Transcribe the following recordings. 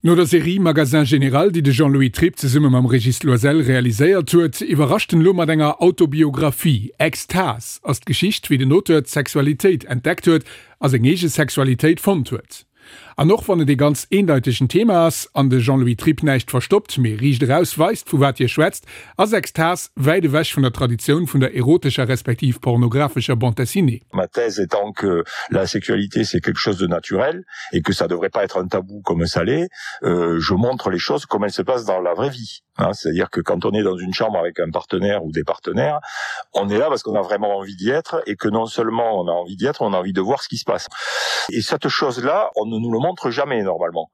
No der Serie Magasin Général, déi de Jean-Louis Tripp zesumme mam Régis Loisel realiséiert huet, iwwerrascht en elo mat enger Autobiographie. Extase ass d'Geschicht, wéi den Auteur d'Sexualitéit entdeckt huet a seng eege Sexualitéit fonnt huet. An och wann et ee ganz eendeitegen Thema ass an de Jean-Louis Tripp näischt verstoppt, mee riicht eraus weist, vu wat hie schwätzt, ass Extase wäit ewech vun der Traditioun vun der erotescher respektiv pornographescher Bande dessinée. Ma thèse étant que la sexualité c'est quelque chose de naturel et que ça devrait pas être un tabou comme ça l'est, euh, je montre les choses comme elles se passent dans la vraie vie. Hein, c'est-à-dire que quand on est dans une chambre avec un partenaire ou des partenaires, on est là parce qu'on a vraiment envie d'y être et que non seulement on a envie d'y être, on a envie de voir ce qui se passe. Et cette chose-là, on ne nous le montre jamais normalement,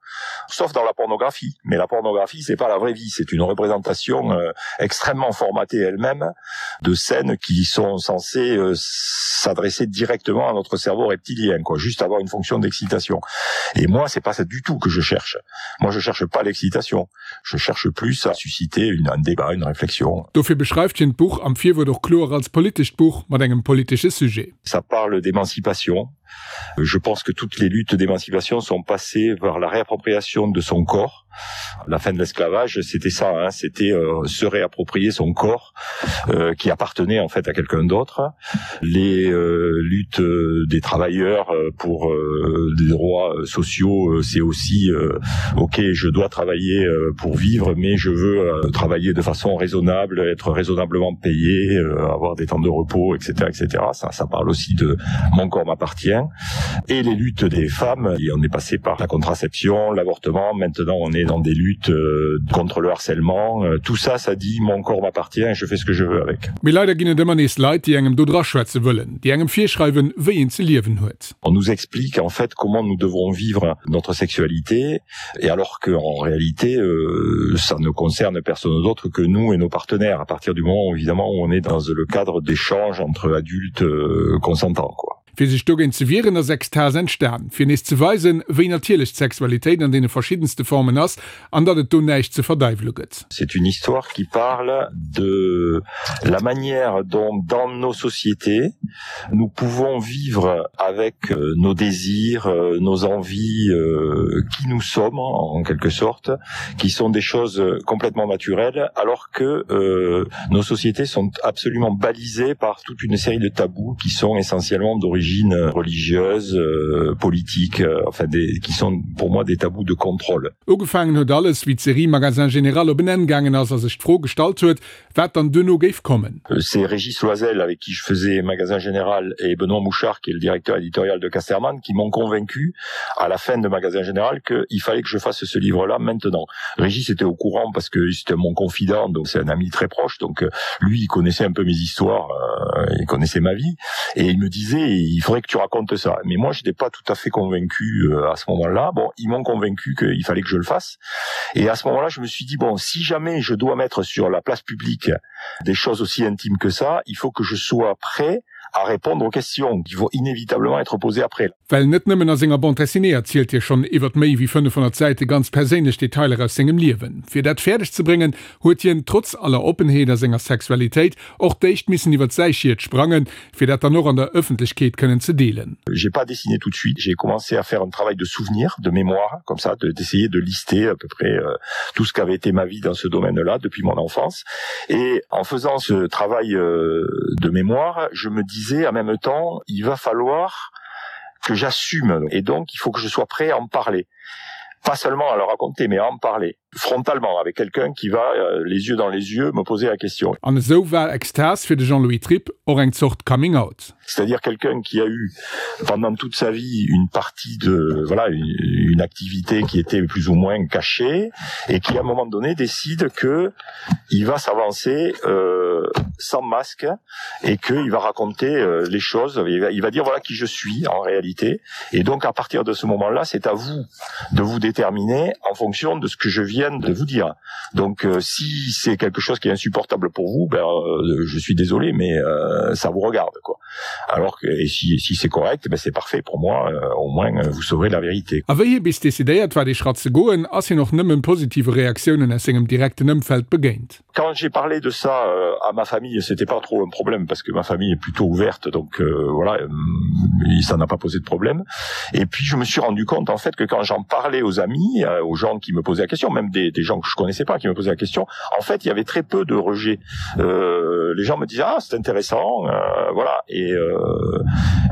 sauf dans la pornographie. Mais la pornographie, c'est pas la vraie vie, c'est une représentation euh, extrêmement formatée elle-même de scènes qui sont censées euh, s'adresser directement à notre cerveau reptilien, quoi, juste avoir une fonction d'excitation. Et moi, c'est pas ça du tout que je cherche. Moi, je cherche pas l'excitation. Je cherche plus à susciter une, un débat, une réflexion. Dofir beschreift hien d'Buch am Virwuert och kloer als politescht Buch mat engem politesche Sujet. Ça parle d'émancipation. Je pense que toutes les luttes d'émancipation sont passées vers la réappropriation de son corps. La fin de l'esclavage, c'était ça, hein, c'était euh, se réapproprier son corps euh, qui appartenait en fait à quelqu'un d'autre. Les euh, luttes euh, des travailleurs euh, pour euh, des droits euh, sociaux, euh, c'est aussi euh, ok, je dois travailler euh, pour vivre, mais je veux euh, travailler de façon raisonnable, être raisonnablement payé, euh, avoir des temps de repos, etc., etc. Ça, ça parle aussi de mon corps m'appartient. Et les luttes des femmes, et on est passé par la contraception, l'avortement, maintenant on est dans des luttes euh, contre le harcèlement. Euh, tout ça, ça dit mon corps m'appartient, je fais ce que je veux avec. Mee leider ginn et ëmmer nees Leit, déi engem do draschwätze wëllen, déi engem virschreiwen, wéi een ze liewen huet. On nous explique en fait comment nous devons vivre notre sexualité et alors que en réalité euh, ça ne concerne personne d'autre que nous et nos partenaires à partir du moment où, évidemment où on est dans le cadre d'échanges entre adultes euh, consentants quoi. Fir sech dogéint ze wieren, ass Extase entstan, fir nees ze weisen, wéi natierlech d'Sexualitéit an deene verschiddenste Formen ass an datt et do näischt ze verdeiwele gëtt. C'est une histoire qui parle de la manière dont dans nos sociétés nous pouvons vivre avec euh, nos désirs, euh, nos envies, euh, qui nous sommes en quelque sorte, qui sont des choses complètement naturelles, alors que euh, nos sociétés sont absolument balisées par toute une série de tabous qui sont essentiellement d'origine religieuse, euh, politique, euh, enfin des, qui sont pour moi des tabous de contrôle. Ugefaangen huet alles, wéi d'Serie Magasin Général op en Enn gaangen ass a sech d'Fro gestallt huet, wat dann duerno géif kommen. C'est Régis Loisel avec qui je faisais Magasin Général et Benoît Mouchard qui est le directeur éditorial de Casterman qui m'ont convaincu à la fin de Magasin Général qu'il fallait que je fasse ce livre là maintenant. Régis était au courant parce que c'était mon confident donc c'est un ami très proche donc euh, lui il connaissait un peu mes histoires euh, il connaissait ma vie et il me disait il faudrait que tu racontes ça mais moi je n'étais pas tout à fait convaincu euh, à ce moment là bon ils m'ont convaincu qu'il fallait que je le fasse et à ce moment là je me suis dit bon si jamais je dois mettre sur la place publique des choses aussi intimes que ça il faut que je sois prêt à répondre aux questions qui vont inévitablement être posées après. Well net nëmmen a senger Bande dessinée erzielt hie schonn iwwert méi wéi 500 Säite ganz perséinlech Detailer aus sengem Liewen. Fir dat fäerdeg ze bréngen, huet hien, trotz aller Oppenheet a senger Sexualitéit, och d'éischt missen iwwert säi Schiet sprangen, fir dat dann och an der Ëffentlechkeet kënnen ze deelen. J'ai pas dessiné tout de suite, j'ai commencé à faire un travail de souvenir, de mémoire, comme ça, d'essayer de lister à peu près euh, tout ce qu'avait été ma vie dans ce domaine-là depuis mon enfance. Et en faisant ce travail euh, de mémoire, je me disais en même temps, il va falloir que j'assume et donc il faut que je sois prêt à en parler pas seulement à le raconter mais à en parler frontalement avec quelqu'un qui va euh, les yeux dans les yeux me poser la question. An esou war Extase fir de Jean-Louis Tripp och eng Zort Coming Out. C'est-à-dire quelqu'un qui a eu pendant toute sa vie une partie de voilà une, une activité qui était plus ou moins cachée et qui à un moment donné décide que il va s'avancer euh, sans masque et qu'il va raconter euh, les choses il va, il va dire voilà qui je suis en réalité et donc à partir de ce moment là c'est à vous de vous déterminer en fonction de ce que je viens de vous dire donc euh, si c'est quelque chose qui est insupportable pour vous ben euh, je suis désolé mais euh, ça vous regarde quoi alors que et si, si c'est correct ben c'est parfait pour moi euh, au moins euh, vous saurez la vérité A wéi hie bis decidéiert war dee Schratt ze goen, ass hien och nëmmen positive Reaktiounen aus sengem direkten Ëmfeld begéint. Quand j'ai parlé de ça euh, à ma famille. famille, c'était pas trop un problème parce que ma famille est plutôt ouverte, donc euh, voilà, euh, ça n'a pas posé de problème. Et puis je me suis rendu compte en fait que quand j'en parlais aux amis, euh, aux gens qui me posaient la question, même des, des gens que je connaissais pas qui me posaient la question, en fait il y avait très peu de rejets. Euh, les gens me disaient ah c'est intéressant, euh, voilà et, euh,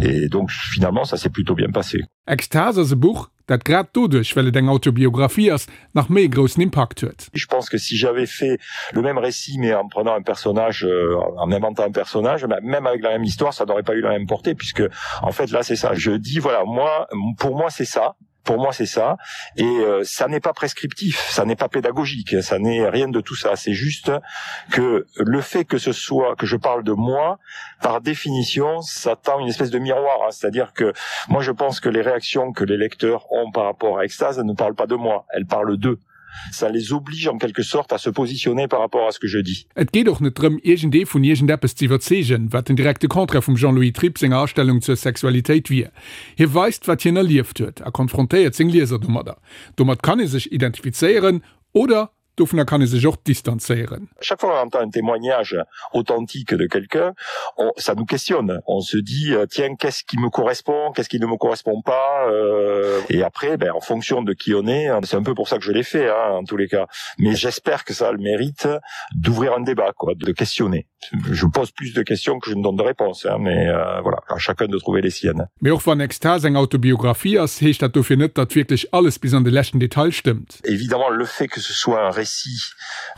et donc finalement ça s'est plutôt bien passé. Extase ass e Buch, dat grad doduerch, well et eng Autobiographie ass, nach méi e groussen Impakt huet. Je pense que si j'avais fait le même récit mais en prenant un personnage, euh, en inventant un personnage, même avec la même histoire, ça n'aurait pas eu la même portée puisque en fait là c'est ça. Je dis voilà, moi pour moi c'est ça pour moi c'est ça et euh, ça n'est pas prescriptif ça n'est pas pédagogique ça n'est rien de tout ça c'est juste que le fait que ce soit que je parle de moi par définition ça tend une espèce de miroir hein. c'est à dire que moi je pense que les réactions que les lecteurs ont par rapport à extase ne parlent pas de moi elles parlent d'eux ça les oblige en quelque sorte à se positionner par rapport à ce que je dis. Et geet och net drëm, iergendee vun iergendeppes ze iwwerzeegen, wat den direkte Contraire vum Jean-Louis Tripp senger Astellung zur Sexualitéit wier. Hie weist, wat hien erlieft huet a konfrontéiert seng Lieser domadder. Domat kann ee sech identifizéieren oder dovunner kann ee sech och distanzéieren. Chaque fois qu'on entend un témoignage authentique de quelqu'un, on, ça nous questionne. On se dit euh, tiens, qu'est-ce qui me correspond, qu'est-ce qui ne me correspond pas euh, et après ben, en fonction de qui on est, c'est un peu pour ça que je l'ai fait hein, en tous les cas. Mais j'espère que ça a le mérite d'ouvrir un débat quoi, de questionner. Je pose plus de questions que je ne donne de réponses hein, mais euh, voilà, à chacun de trouver les siennes. Mee och wann Extase eng Autobiographie ass, heescht dat dofir net, datt wierklech alles bis an de leschten Detail stëmmt. Évidemment, le fait que ce soit un récit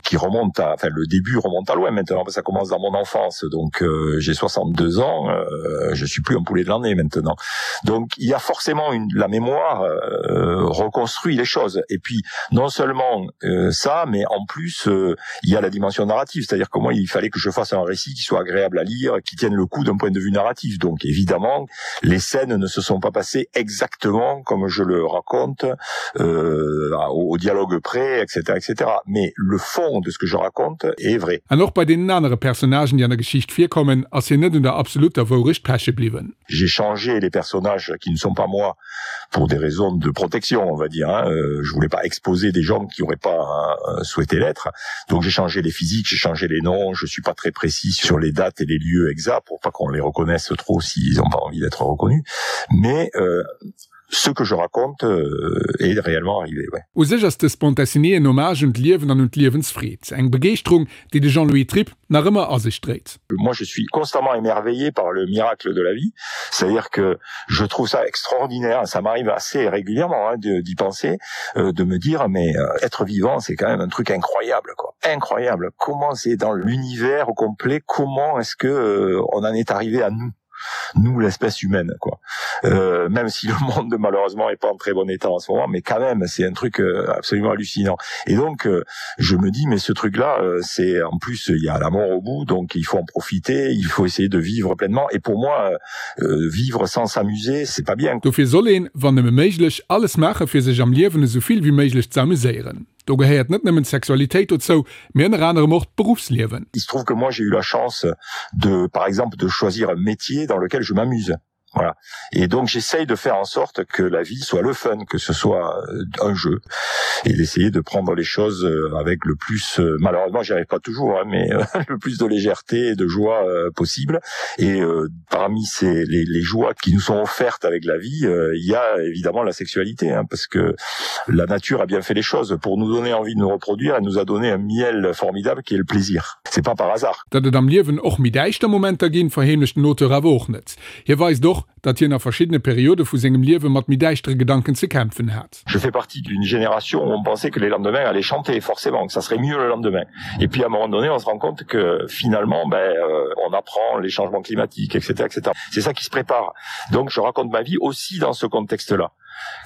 qui remonte à, enfin le début remonte à loin maintenant, ça commence dans mon enfance, donc euh, j'ai 62 ans, euh, je suis plus un poulet de l'année maintenant. Donc il y a forcément une, la mémoire euh, reconstruit les choses. Et puis non seulement euh, ça, mais en plus euh, il y a la dimension narrative, c'est-à-dire comment il fallait que je fasse un récit qui soit agréable à lire, qui tienne le coup d'un point de vue narratif. Donc évidemment, les scènes ne se sont pas passées exactement comme je le raconte euh, au, au dialogue près, etc., etc. Mais le fond de ce que je raconte est vrai. An och bei deenen anere Personnagen, déi an der Geschicht virkommen, ass hien net un der absolutter Wourecht peche bliwwen. J'ai changé les personnages qui ne sont pas moi pour des raisons de protection, on va dire. Hein. Euh, je voulais pas exposer des gens qui auraient pas euh, souhaité l'être. Donc j'ai changé les physiques, j'ai changé les noms, je suis pas très précis sur les dates et les lieux exacts pour pas qu'on les reconnaisse trop s'ils ont pas envie d'être reconnus. Mais euh, ce que je raconte euh, est réellement arrivé. Ouais. U sech ass dës Bande dessinée en Hommage un d'Liewen an un d'Liewensfreed, eng Begeeschterung, déi de Jean-Louis Tripp nach ëmmer a sech dréit. Moi je suis constamment émerveillé par le miracle de la vie, c'est-à-dire que je trouve ça extraordinaire, ça m'arrive assez régulièrement hein, d'y penser, euh, de me dire mais euh, être vivant c'est quand même un truc incroyable quoi. Incroyable. Comment c'est dans l'univers au complet, comment est-ce que euh, on en est arrivé à nous? nous l'espèce humaine quoi euh, même si le monde malheureusement est pas en très bon état en ce moment mais quand même c'est un truc euh, absolument hallucinant et donc euh, je me dis mais ce truc là euh, c'est en plus il y a la mort au bout donc il faut en profiter il faut essayer de vivre pleinement et pour moi euh, euh vivre sans s'amuser c'est pas bien dofir soll een wann nëmme méiglech alles maache fir sech am Liewen esou vill wéi méiglech ze amuséieren. Do gehéiert net nëmmen d'Sexualitéit dozou, mee ënner anerem och d'Beruffsliewen. Il se trouve que moi j'ai eu la chance de par exemple de choisir un métier dans lequel je m'amuse. Voilà. Et donc j'essaye de faire en sorte que la vie soit le fun, que ce soit euh, un jeu et d'essayer de prendre les choses euh, avec le plus euh, malheureusement j'y arrive pas toujours hein, mais le plus de légèreté et de joie possible et euh, parmi ces les, les joies qui nous sont offertes avec la vie euh, il y a évidemment la sexualité hein, parce que la nature a bien fait les choses pour nous donner envie de nous reproduire elle nous a donné un miel formidable qui est le plaisir c'est pas par hasard Datt et am Liewen och méi däischter Momenter ginn, verheemlecht den Auteur awer och net. Hie weist och, datt hien a verschiddene Periode vu sengem Liewe mat méi däischtere Gedanken ze kämpfen hat. Je fais partie d'une génération où on pensait que les lendemains allaient chanter forcément, que ça serait mieux le lendemain. Et puis à un moment donné, on se rend compte que finalement ben, euh, on apprend les changements climatiques, etc. etc. C'est ça qui se prépare. Donc je raconte ma vie aussi dans ce contexte-là.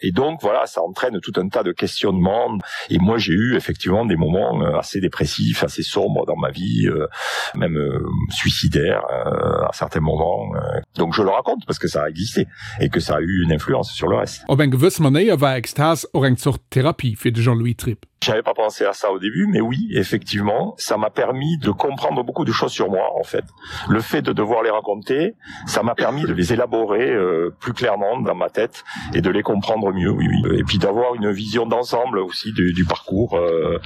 Et donc voilà, ça entraîne tout un tas de questionnements. Et moi j'ai eu effectivement des moments euh, assez dépressifs, assez sombres dans ma vie, euh, même euh, suicidaire euh, à certains moments. Euh. Donc je le raconte parce que ça a existé et que ça a eu une influence sur le reste. Op eng gewëss Manéier war Extase och eng Zort Therapie fir de Jean-Louis Tripp. J'avais pas pensé à ça au début, mais oui, effectivement, ça m'a permis de comprendre beaucoup de choses sur moi en fait. Le fait de devoir les raconter, ça m'a permis de les élaborer euh, plus clairement dans ma tête et de les comprendre mieux oui, oui. et puis d'avoir une vision d'ensemble aussi du, du parcours euh,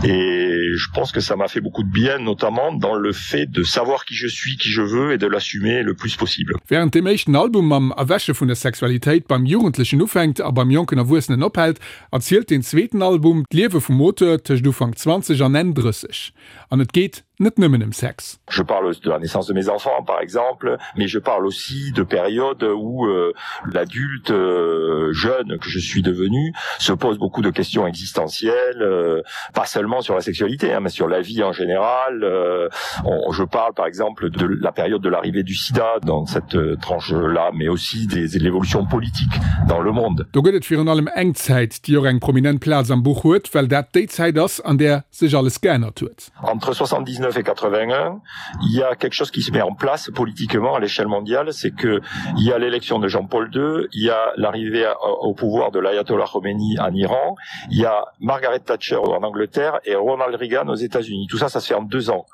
et je pense que ça m'a fait beaucoup de bien notamment dans le fait de savoir qui je suis qui je veux et de l'assumer le plus possible. Während deem éischten Album mam Erwäche vun der Sexualitéit beim Jugendlechen ufänkt a beim jonken Erwuessenen ophält, erzielt deen zweeten Album d'Liewe vum Auteur tëscht Ufank 20 an Enn 30. An et geet net nëmmen ëm Sex. Je parle de la naissance de mes enfants par exemple, mais je parle aussi de périodes où euh, l'adulte euh, jeune que je suis devenu se pose beaucoup de questions existentielles, euh, pas seulement sur la sexualité, hein, mais sur la vie en général. Euh, on, je parle par exemple de la période de l'arrivée du sida dans cette euh, tranche là, mais aussi des, de l'évolution politique dans le monde. Do gëtt et virun allem eng Zäit, déi och eng prominent Plaz am Buch huet, well dat déi Zäit ass, an där sech alles geännert huet. Entre 79 et 81, il y a quelque chose qui se met en place politiquement à l'échelle mondiale, c'est que il y a l'élection de Jean-Paul II, il y a l'arrivée au pouvoir de l'ayatollah Khomeini en Iran, il y a Margaret Thatcher en Angleterre et Ronald Reagan aux États-Unis. Tout ça, ça se fait en deux ans.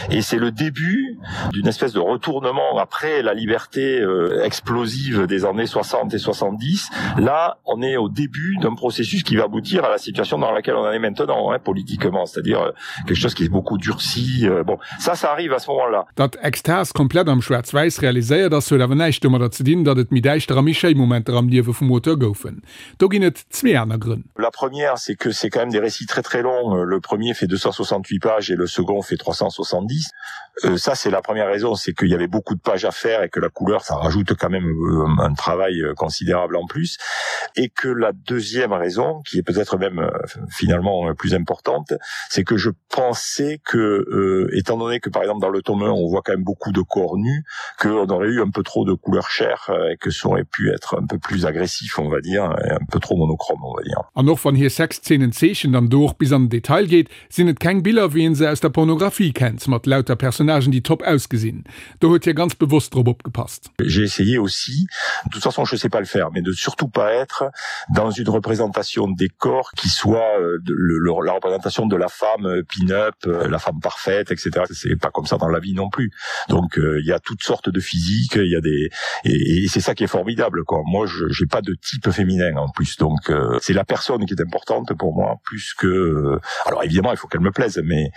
Et c'est le début d'une espèce de retournement après la liberté euh, explosive des années 60 et 70. Là, on est au début d'un processus qui va aboutir à la situation dans laquelle on en est maintenant hein, politiquement, c'est-à-dire euh, quelque chose qui est beaucoup durci. Euh, bon, ça, ça arrive à ce moment-là. Datt Extase komplett am Schwaarz-Wäiss realiséiert ass, huet awer näischt domadder ze dinn, datt et méi däischter a méi schéi Momenter am Liewe vum Auteur goufen. Do ginn et zwee aner Grënn. La première, c'est que c'est quand même des récits très très longs. Le premier fait 268 pages et le second fait 370. Euh, ça, c'est la première raison, c'est qu'il y avait beaucoup de pages à faire et que la couleur, ça rajoute quand même euh, un travail euh, considérable en plus. Et que la deuxième raison, qui est peut-être même euh, finalement plus importante, c'est que je pensais que, euh, étant donné que par exemple dans le tome 1, on voit quand même beaucoup de corps nus, qu'on aurait eu un peu trop de couleurs chères et que ça aurait pu être un peu plus agressif, on va dire, et un peu trop monochrome, on va dire. An och wann hie Sexzeenen zeechent an do och bis an den Detail geet, sinn et keng Biller wéi een se aus der Pornographie kennt, mat lauter Personnagen déi top ausgesinn. Do huet hie ganz bewosst drop opgepasst. J'ai essayé aussi, de toute façon je sais pas le faire, mais de surtout pas être dans une représentation des corps qui soit euh, de, le, le, la représentation de la femme euh, pin-up, euh, la femme parfaite, etc. C'est pas comme ça dans la vie non plus. Donc euh, il y a toutes sortes de physiques, il y a des et, et c'est ça qui est formidable quoi. Moi je j'ai pas de type féminin en plus donc euh, c'est la personne qui est importante pour moi plus que euh, alors évidemment il faut qu'elle me plaise mais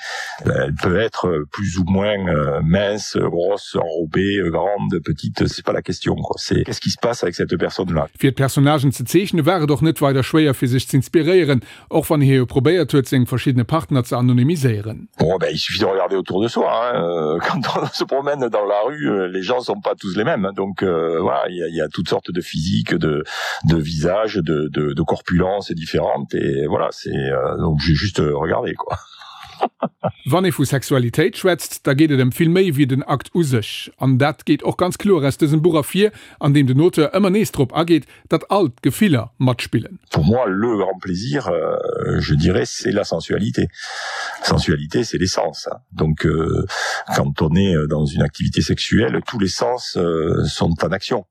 euh, elle peut être plus ou moins euh, mince, grosse, enrobée, grande, petite, c'est pas la question quoi. C'est qu'est-ce qui se passe avec cette personne là. Fir d'Personnagen ze zeechne war et och net weider schwéier fir sech z'inspiréieren, och wann hie jo probéiert huet seng verschiddene Partner ze anonymiséieren. Bon ben il suffit de regarder autour de soi hein, euh, quand on se promène dans la rue, euh, les gens sont pas tous les mêmes donc euh, voilà il y a, il y a toutes sortes de physiques, de, de visages, de, de, de corpulences différentes et voilà c'est euh, donc j'ai juste regardé quoi. Wann ee vu Sexualitéit schwätzt, da geet et ëm vill méi wéi den Akt u sech. An dat geet och ganz kloer aus dësem Buch ervir, an deem den Auteur ëmmer nees drop ageet, datt all d'Gefiller matspillen. Pour moi, le grand plaisir, euh, je dirais, c'est la sensualité. Sensualité, c'est les sens. Donc, euh, quand on est dans une activité sexuelle, tous les sens euh, sont en action.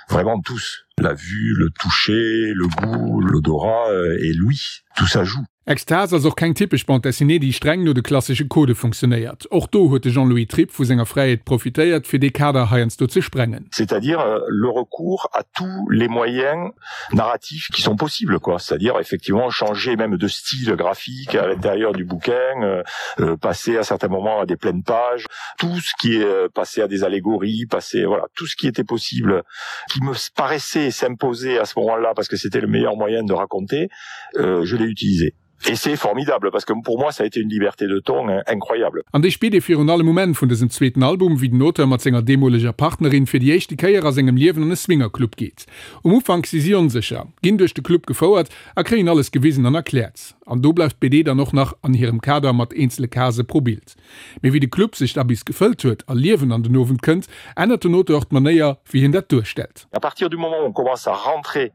Vraiment tous. La vue, le toucher, le goût, l'odorat euh, et l'ouïe, tout ça joue. Extase ass och keng typesch Bande dessinée, déi streng no de klassesche Codë funktionéiert. Och do huet de Jean-Louis Tripp vu senger Fräiheet profitéiert, fir dee Kader heiansdo ze sprengen. C'est-à-dire le recours à tous les moyens narratifs qui sont possibles, quoi. C'est-à-dire effectivement changer même de style graphique à l'intérieur du bouquin, euh, passer à certains moments à des pleines pages, tout ce qui est passé à des allégories, passer, voilà, tout ce qui était possible, qui me paraissait s'imposer à ce moment-là parce que c'était le meilleur moyen de raconter, euh, je l'ai utilisé. Et c'est formidable parce que pour moi ça a été une liberté de ton incroyable. An déi spiert ee virun allem um Enn vun dësem zweeten Album, wéi den Auteur mat senger deemoleger Partnerin fir déi éischte Kéier a sengem Liewen an e Swingerclub geet. Um Ufank si si onsécher, ginn duerch de Club gefouert a kréien alles gewisen an erkläert. An do bleift d'BD dann och nach an hirem Kader mat eenzele Case pro Bild. Mee wéi de Club sech da bis gefëllt huet a Liewen an den Owend kënnt, ännert den Auteur och d'Manéier, wéi hien dat duerstellt. À partir du moment où on commence à rentrer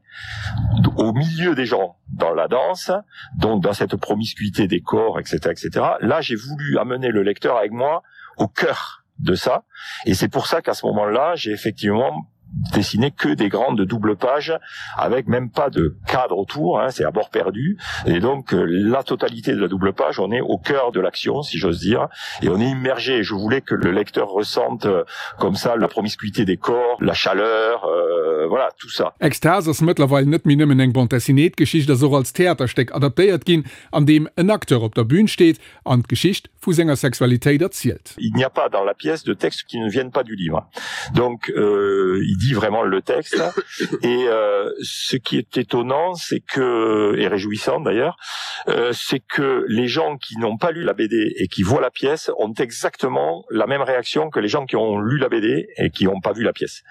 au milieu des gens dans la danse, donc dans cette promiscuité des corps, etc., etc., là j'ai voulu amener le lecteur avec moi au cœur de ça. Et c'est pour ça qu'à ce moment-là, j'ai effectivement dessiné que des grandes doubles pages avec même pas de cadre autour hein, c'est à bord perdu et donc euh, la totalité de la double page on est au cœur de l'action si j'ose dire et on est immergé je voulais que le lecteur ressente euh, comme ça la promiscuité des corps la chaleur euh, voilà tout ça Extase ass mëttlerweil net méi nëmmen eng Bande dessinée, d'Geschicht ass och als Theaterstéck adaptéiert ginn, an deem en Acteur op der Bühn steet an d'Geschicht vu senger Sexualitéit erzielt. Il n'y a pas dans la pièce de texte qui ne viennent pas du livre. Donc euh, il dit vraiment le texte et euh, ce qui est étonnant c'est que et réjouissant d'ailleurs euh, c'est que les gens qui n'ont pas lu la BD et qui voient la pièce ont exactement la même réaction que les gens qui ont lu la BD et qui n'ont pas vu la pièce.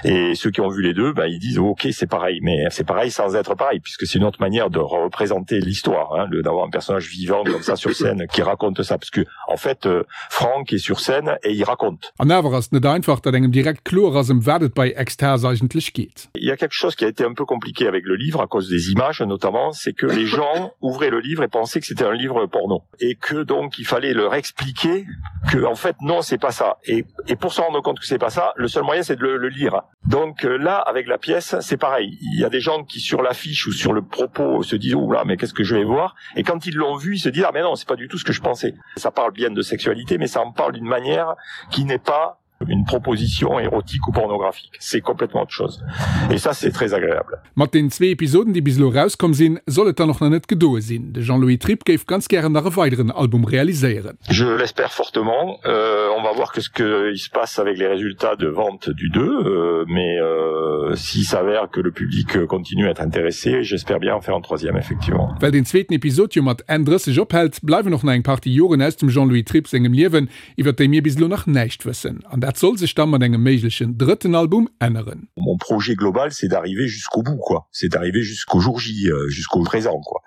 Et ceux qui ont vu les deux ben, ils disent ok c'est pareil mais c'est pareil sans être pareil puisque c'est une autre manière de représenter l'histoire d'avoir un personnage vivant comme ça sur scène qui raconte ça parce que en fait euh, Franck est sur scène et il raconte. An awer ass et net einfach, datt engem direkt kloer ass, ëm wat et bei Extase eigentlech geet. Il y a quelque chose qui a été un peu compliqué avec le livre à cause des images notamment, c'est que les gens ouvraient le livre et pensaient que c'était un livre porno et que donc il fallait leur expliquer que en fait non c'est pas ça et, et pour se rendre compte que c'est pas ça, le seul moyen c'est de le, le lire. Donc euh, là avec la pièce c'est pareil, il y a des gens qui sur l'affiche ou sur le propos se disent oh là mais qu'est-ce que je vais voir et quand ils l'ont vu ils se disent ah mais non c'est pas du tout ce que je pensais. Ça parle bien de sexualité mais ça en parle d'une manière qui n'est pas une proposition érotique ou pornographique. C'est complètement autre chose. Et ça, c'est très agréable. Mat den zwee Episoden, déi bis elo erauskomm sinn, soll et dann och nach net gedoe sinn. De Jean-Louis Tripp géif ganz gären nach e weideren Album realiséieren. Je l'espère fortement. Euh, on va voir que ce qu'il se passe avec les résultats de vente du 2, euh, mais euh, s'il s'avère que le public continue à être intéressé, j'espère bien en faire un troisième, effectivement. Well den zweeten Episod jo mat Enn 30 ophält, bleiwen och nach eng Partie Joren aus dem Jean-Louis Tripp sengem Liewen, iwwer déi mir bis elo nach näischt wëssen. An dat soll sech da mat engem méiglechen drëtten Album änneren. Mon projet global, c'est d'arriver jusqu'au bout, quoi. C'est d'arriver jusqu'au jour J, euh, jusqu'au présent, quoi.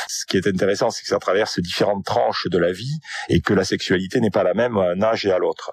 Ce qui est intéressant, c'est que ça traverse différentes tranches de la vie et que la sexualité n'est pas la même à un âge et à l'autre.